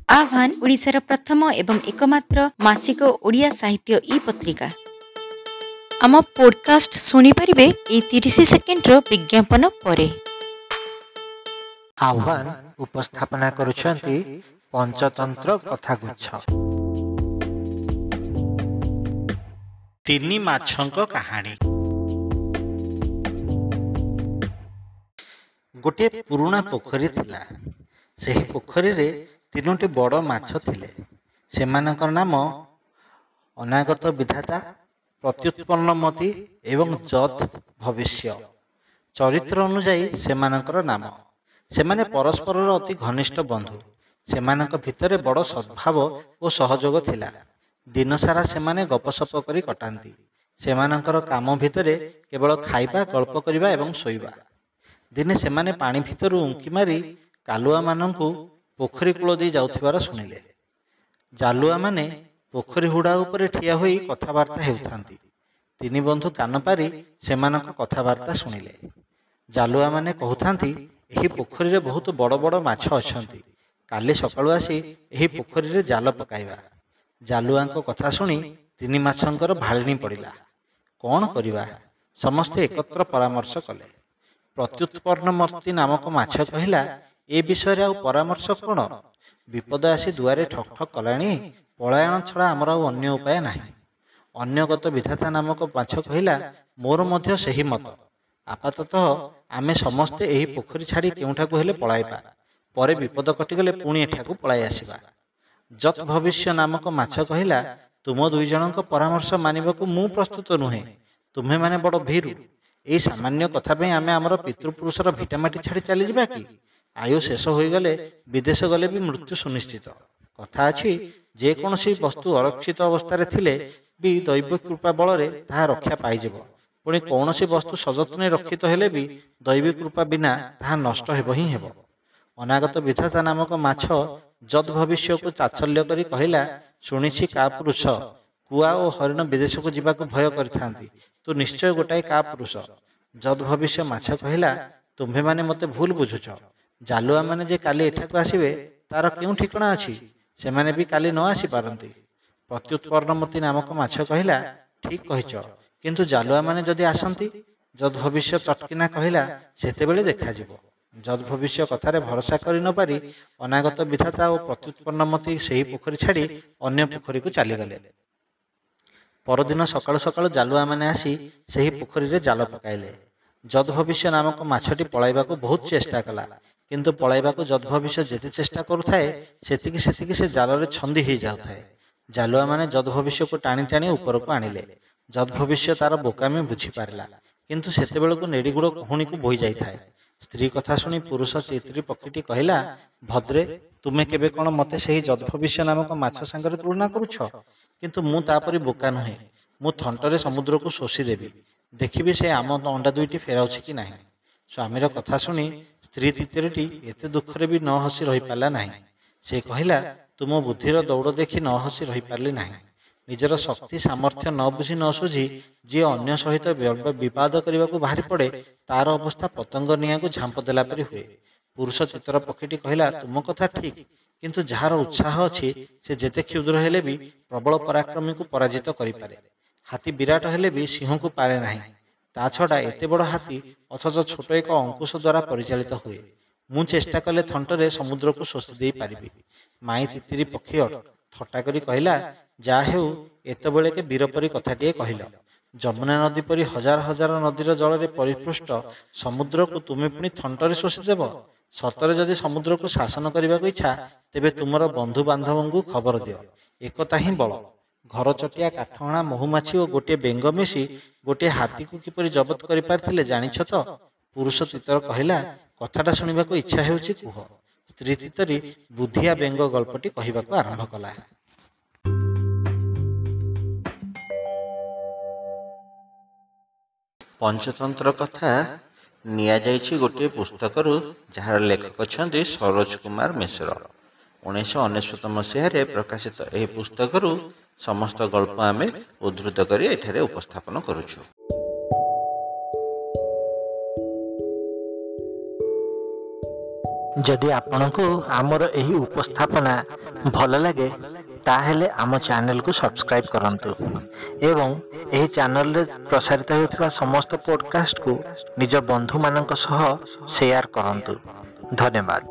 ଆହ୍ୱାନ ଓଡ଼ିଶାର ପ୍ରଥମ ଏବଂ ଏକମାତ୍ର ମାସିକ ଓଡ଼ିଆ ସାହିତ୍ୟ ଇ ପତ୍ରିକା। ଆମ ପୋଡକାଷ୍ଟ ଶୁଣିପାରିବେ ଏଇ 30 ସେକେଣ୍ଡର ବିଜ୍ଞାପନ ପରେ। ଆହ୍ୱାନ ଉପସ୍ଥାପନା କରୁଛନ୍ତି ପଞ୍ଚତନ୍ତ୍ର କଥାଗୁଚ୍ଛ। ତିନି ମାଛଙ୍କ କାହାଣୀ। ଗୋଟିଏ ପୁରୁଣା ପୋଖରୀ ଥିଲା। ସେହି ପୋଖରୀରେ ତିନୋଟି ବଡ଼ ମାଛ ଥିଲେ। ସେମାନଙ୍କ ନାମ ଅନାଗତ ବିଧାତା, ପ୍ରତ୍ୟୁତ୍ପନ୍ନମତି ଏବଂ ଯତ୍ ଭବିଷ୍ୟ। ଚରିତ୍ର ଅନୁଯାୟୀ ସେମାନଙ୍କର ନାମ। ସେମାନେ ପରସ୍ପରର ଅତି ଘନିଷ୍ଠ ବନ୍ଧୁ। ସେମାନଙ୍କ ଭିତରେ ବଡ଼ ସଦ୍ଭାବ ଓ ସହଯୋଗ ଥିଲା। ଦିନସାରା ସେମାନେ ଗପସପ କରି କଟାନ୍ତି। ସେମାନଙ୍କର କାମ ଭିତରେ କେବଳ ଖାଇବା, ଗଳ୍ପ କରିବା ଏବଂ ଶୋଇବା। ଦିନେ ସେମାନେ ପାଣି ଭିତରୁ ଉଙ୍କି ମାରି କାଲୁଆମାନଙ୍କୁ ପୋଖରୀ କୂଳ ଦେଇ ଯାଉଥିବାର ଶୁଣିଲେ। ଜାଲୁଆମାନେ ପୋଖରୀ ହୁଡ଼ା ଉପରେ ଠିଆ ହୋଇ କଥାବାର୍ତ୍ତା ହେଉଥାନ୍ତି। ତିନି ବନ୍ଧୁ କାନ ପାରି ସେମାନଙ୍କ କଥାବାର୍ତ୍ତା ଶୁଣିଲେ। ଜାଲୁଆମାନେ କହୁଥାନ୍ତି, ଏହି ପୋଖରୀରେ ବହୁତ ବଡ଼ ବଡ଼ ମାଛ ଅଛନ୍ତି। କାଲି ସକାଳୁ ଆସି ଏହି ପୋଖରୀରେ ଜାଲ ପକାଇବା। ଜାଲୁଆଙ୍କ କଥା ଶୁଣି ତିନି ମାଛଙ୍କର ଭାଳେଣି ପଡ଼ିଲା। କ'ଣ କରିବା? ସମସ୍ତେ ଏକତ୍ର ପରାମର୍ଶ କଲେ। ପ୍ରତ୍ୟୁତ୍ପନ୍ନମତି ନାମକ ମାଛ କହିଲା, ଏ ବିଷୟରେ ଆଉ ପରାମର୍ଶ କ'ଣ? ବିପଦ ଆସି ଦୁଆରେ ଠକ୍ ଠକ୍ କଲାଣି। ପଳାୟନ ଛଡ଼ା ଆମର ଆଉ ଅନ୍ୟ ଉପାୟ ନାହିଁ। ଅନ୍ୟଗତ ବିଧାତା ନାମକ ମାଛ କହିଲା, ମୋର ମଧ୍ୟ ସେହି ମତ। ଆପାତତଃ ଆମେ ସମସ୍ତେ ଏହି ପୋଖରୀ ଛାଡ଼ି କେଉଁଠାକୁ ହେଲେ ପଳାଇବା। ପରେ ବିପଦ କଟିଗଲେ ପୁଣି ଏଠାକୁ ପଳାଇ ଆସିବା। ଯତ୍ ଭବିଷ୍ୟ ନାମକ ମାଛ କହିଲା, ତୁମ ଦୁଇ ଜଣଙ୍କ ପରାମର୍ଶ ମାନିବାକୁ ମୁଁ ପ୍ରସ୍ତୁତ ନୁହେଁ। ତୁମ୍ଭେମାନେ ବଡ଼ ଭୀରୁ। ଏଇ ସାମାନ୍ୟ କଥା ପାଇଁ ଆମେ ଆମର ପିତୃପୁରୁଷର ଭିଟାମାଟି ଛାଡ଼ି ଚାଲିଯିବା କି? ଆୟୁ ଶେଷ ହୋଇଗଲେ ବିଦେଶ ଗଲେ ବି ମୃତ୍ୟୁ ସୁନିଶ୍ଚିତ। କଥା ଅଛି, ଯେକୌଣସି ବସ୍ତୁ ଅରକ୍ଷିତ ଅବସ୍ଥାରେ ଥିଲେ ବି ଦୈବ କୃପା ବଳରେ ତାହା ରକ୍ଷା ପାଇଯିବ। ପୁଣି କୌଣସି ବସ୍ତୁ ସଯତ୍ନେ ରକ୍ଷିତ ହେଲେ ବି ଦୈବୀ କୃପା ବିନା ତାହା ନଷ୍ଟ ହେବ ହିଁ ହେବ। ଅନାଗତ ବିଧାତା ନାମକ ମାଛ ଯଦ୍ ଭବିଷ୍ୟକୁ ତାଚ୍ଛଲ୍ୟ କରି କହିଲା, ଶୁଣିଛି କାପୁରୁଷ କୁଆ ଓ ହରିଣ ବିଦେଶକୁ ଯିବାକୁ ଭୟ କରିଥାନ୍ତି। ତୁ ନିଶ୍ଚୟ ଗୋଟାଏ କାପୁରୁଷ। ଯଦ୍ ଭବିଷ୍ୟ ମାଛ କହିଲା, ତୁମ୍ଭେମାନେ ମୋତେ ଭୁଲ ବୁଝୁଛ। ଜାଲୁଆମାନେ ଯେ କାଲି ଏଠାକୁ ଆସିବେ ତାର କେଉଁ ଠିକଣା ଅଛି? ସେମାନେ ବି କାଲି ନ ଆସିପାରନ୍ତି। ପ୍ରତ୍ୟୁତ୍ପନ୍ନମତି ନାମକ ମାଛ କହିଲା, ଠିକ୍ କହିଛ, କିନ୍ତୁ ଜାଲୁଆମାନେ ଯଦି ଆସନ୍ତି? ଯଦ୍ ଭବିଷ୍ୟ ଚଟକିନା କହିଲା, ସେତେବେଳେ ଦେଖାଯିବ। ଯଦ୍ ଭବିଷ୍ୟ କଥାରେ ଭରସା କରି ନ ପାରି ଅନାଗତ ବିଧାତା ଓ ପ୍ରତ୍ୟୁତ୍ପନ୍ନମତି ସେହି ପୋଖରୀ ଛାଡ଼ି ଅନ୍ୟ ପୋଖରୀକୁ ଚାଲିଗଲେ। ପରଦିନ ସକାଳୁ ସକାଳୁ ଜାଲୁଆମାନେ ଆସି ସେହି ପୋଖରୀରେ ଜାଲ ପକାଇଲେ। ଯଦ୍ ଭବିଷ୍ୟ ନାମକ ମାଛଟି ପଳାଇବାକୁ ବହୁତ ଚେଷ୍ଟା କଲା। କିନ୍ତୁ ପଳାଇବାକୁ ଯଦ୍ ଭବିଷ୍ୟ ଯେତେ ଚେଷ୍ଟା କରୁଥାଏ, ସେତିକି ସେତିକି ସେ ଜାଲରେ ଛନ୍ଦି ହେଇଯାଉଥାଏ। ଜାଲୁଆମାନେ ଯଦ୍ ଭବିଷ୍ୟକୁ ଟାଣି ଟାଣି ଉପରକୁ ଆଣିଲେ। ଯଦ୍ ଭବିଷ୍ୟ ତାର ବୋକାମି ବୁଝିପାରିଲା, କିନ୍ତୁ ସେତେବେଳକୁ ନେଡ଼ିଗୁଡ଼ କହୁଣୀକୁ ବୋହି ଯାଇଥାଏ। ସ୍ତ୍ରୀ କଥା ଶୁଣି ପୁରୁଷ ଚିତ୍ରୀ ପକ୍ଷୀଟି କହିଲା, ଭଦ୍ରେ, ତୁମେ କେବେ କ'ଣ ମୋତେ ସେହି ଯଦ୍ଭବିଷ୍ୟ ନାମକ ମାଛ ସାଙ୍ଗରେ ତୁଳନା କରୁଛ? କିନ୍ତୁ ମୁଁ ତା'ପରି ବୋକା ନୁହେଁ। ମୁଁ ଥଣ୍ଟରେ ସମୁଦ୍ରକୁ ଶୋଷିଦେବି। ଦେଖିବି ସେ ଆମ ଅଣ୍ଡା ଦୁଇଟି ଫେରାଉଛି କି ନାହିଁ। ସ୍ୱାମୀର କଥା ଶୁଣି ସ୍ତ୍ରୀ ତିତିରିଟି ଏତେ ଦୁଃଖରେ ବି ନ ହସି ରହିପାରିଲା ନାହିଁ। ସେ କହିଲା, ତୁମ ବୁଦ୍ଧିର ଦୌଡ଼ ଦେଖି ନ ହସି ରହିପାରିଲି ନାହିଁ। ନିଜର ଶକ୍ତି ସାମର୍ଥ୍ୟ ନ ବୁଝି ନ ସୁଝି ଯିଏ ଅନ୍ୟ ସହିତ ବିବାଦ କରିବାକୁ ବାହାରି ପଡ଼େ, ତାର ଅବସ୍ଥା ପତଙ୍ଗ ନିଆଁକୁ ଝାମ୍ପ ଦେଲା ପରି ହୁଏ। ପୁରୁଷ ଚିତ୍ର ପକ୍ଷୀଟି କହିଲା, ତୁମ କଥା ଠିକ୍, କିନ୍ତୁ ଯାହାର ଉତ୍ସାହ ଅଛି ସେ ଯେତେ କ୍ଷୁଦ୍ର ହେଲେ ବି ପ୍ରବଳ ପରାକ୍ରମୀକୁ ପରାଜିତ କରିପାରେ। ହାତୀ ବିରାଟ ହେଲେ ବି ସିଂହକୁ ପାରେ ନାହିଁ। ତା ଛଡ଼ା ଏତେ ବଡ଼ ହାତୀ ଅଥଚ ଛୋଟ ଏକ ଅଙ୍କୁଶ ଦ୍ୱାରା ପରିଚାଳିତ ହୁଏ। ମୁଁ ଚେଷ୍ଟା କଲେ ଥଣ୍ଟରେ ସମୁଦ୍ରକୁ ଶୋଷି ଦେଇପାରିବି। ମାଇଁ ତିତିରି ପକ୍ଷୀ ଥଟ୍ଟା କରି କହିଲା, ଯାହା ହେଉ, ଏତେବେଳେକେ ବୀର ପରି କଥାଟିଏ କହିଲ। ଯମୁନା ନଦୀ ପରି ହଜାର ହଜାର ନଦୀର ଜଳରେ ପରିପୃଷ୍ଟ ସମୁଦ୍ରକୁ ତୁମେ ପୁଣି ଥଣ୍ଟରେ ଶୋଷିଦେବ? ସତରେ ଯଦି ସମୁଦ୍ରକୁ ଶାସନ କରିବାକୁ ଇଚ୍ଛା, ତେବେ ତୁମର ବନ୍ଧୁବାନ୍ଧବଙ୍କୁ ଖବର ଦିଅ। ଏକତା ହିଁ ବଳ। ଘରଚଟିଆ, କାଠହଣା, ମହୁମାଛି ଓ ଗୋଟିଏ ବେଙ୍ଗ ମିଶି ଗୋଟିଏ ହାତୀକୁ କିପରି ଜବତ କରିପାରିଥିଲେ ଜାଣିଛ ତ? ପୁରୁଷ ତିତର କହିଲା, କଥାଟା ଶୁଣିବାକୁ ଇଚ୍ଛା ହେଉଛି, କୁହ। ସ୍ତ୍ରୀ ତିତରି ବୁଦ୍ଧିଆ ବେଙ୍ଗ ଗଳ୍ପଟି କହିବାକୁ ଆରମ୍ଭ କଲା। ପଞ୍ଚତନ୍ତ୍ର କଥା ନିଆଯାଇଛି ଗୋଟିଏ ପୁସ୍ତକରୁ, ଯାହାର ଲେଖକ ଅଛନ୍ତି ସରୋଜ କୁମାର ମିଶ୍ର। 1999 ମସିହାରେ ପ୍ରକାଶିତ ଏହି ପୁସ୍ତକରୁ ସମସ୍ତ ଗଳ୍ପ ଆମେ ଉଦ୍ଧୃତ କରି ଏଠାରେ ଉପସ୍ଥାପନ କରୁଛୁ। ଯଦି ଆପଣଙ୍କୁ ଆମର ଏହି ଉପସ୍ଥାପନା ଭଲ ଲାଗେ, ତାହେଲେ ଆମ ଚ୍ୟାନେଲକୁ ସବସ୍କ୍ରାଇବ୍ କରନ୍ତୁ ଏବଂ ଏହି ଚ୍ୟାନେଲରେ ପ୍ରସାରିତ ହେଉଥିବା ସମସ୍ତ ପଡ଼କାଷ୍ଟକୁ ନିଜ ବନ୍ଧୁମାନଙ୍କ ସହ ସେୟାର କରନ୍ତୁ। ଧନ୍ୟବାଦ।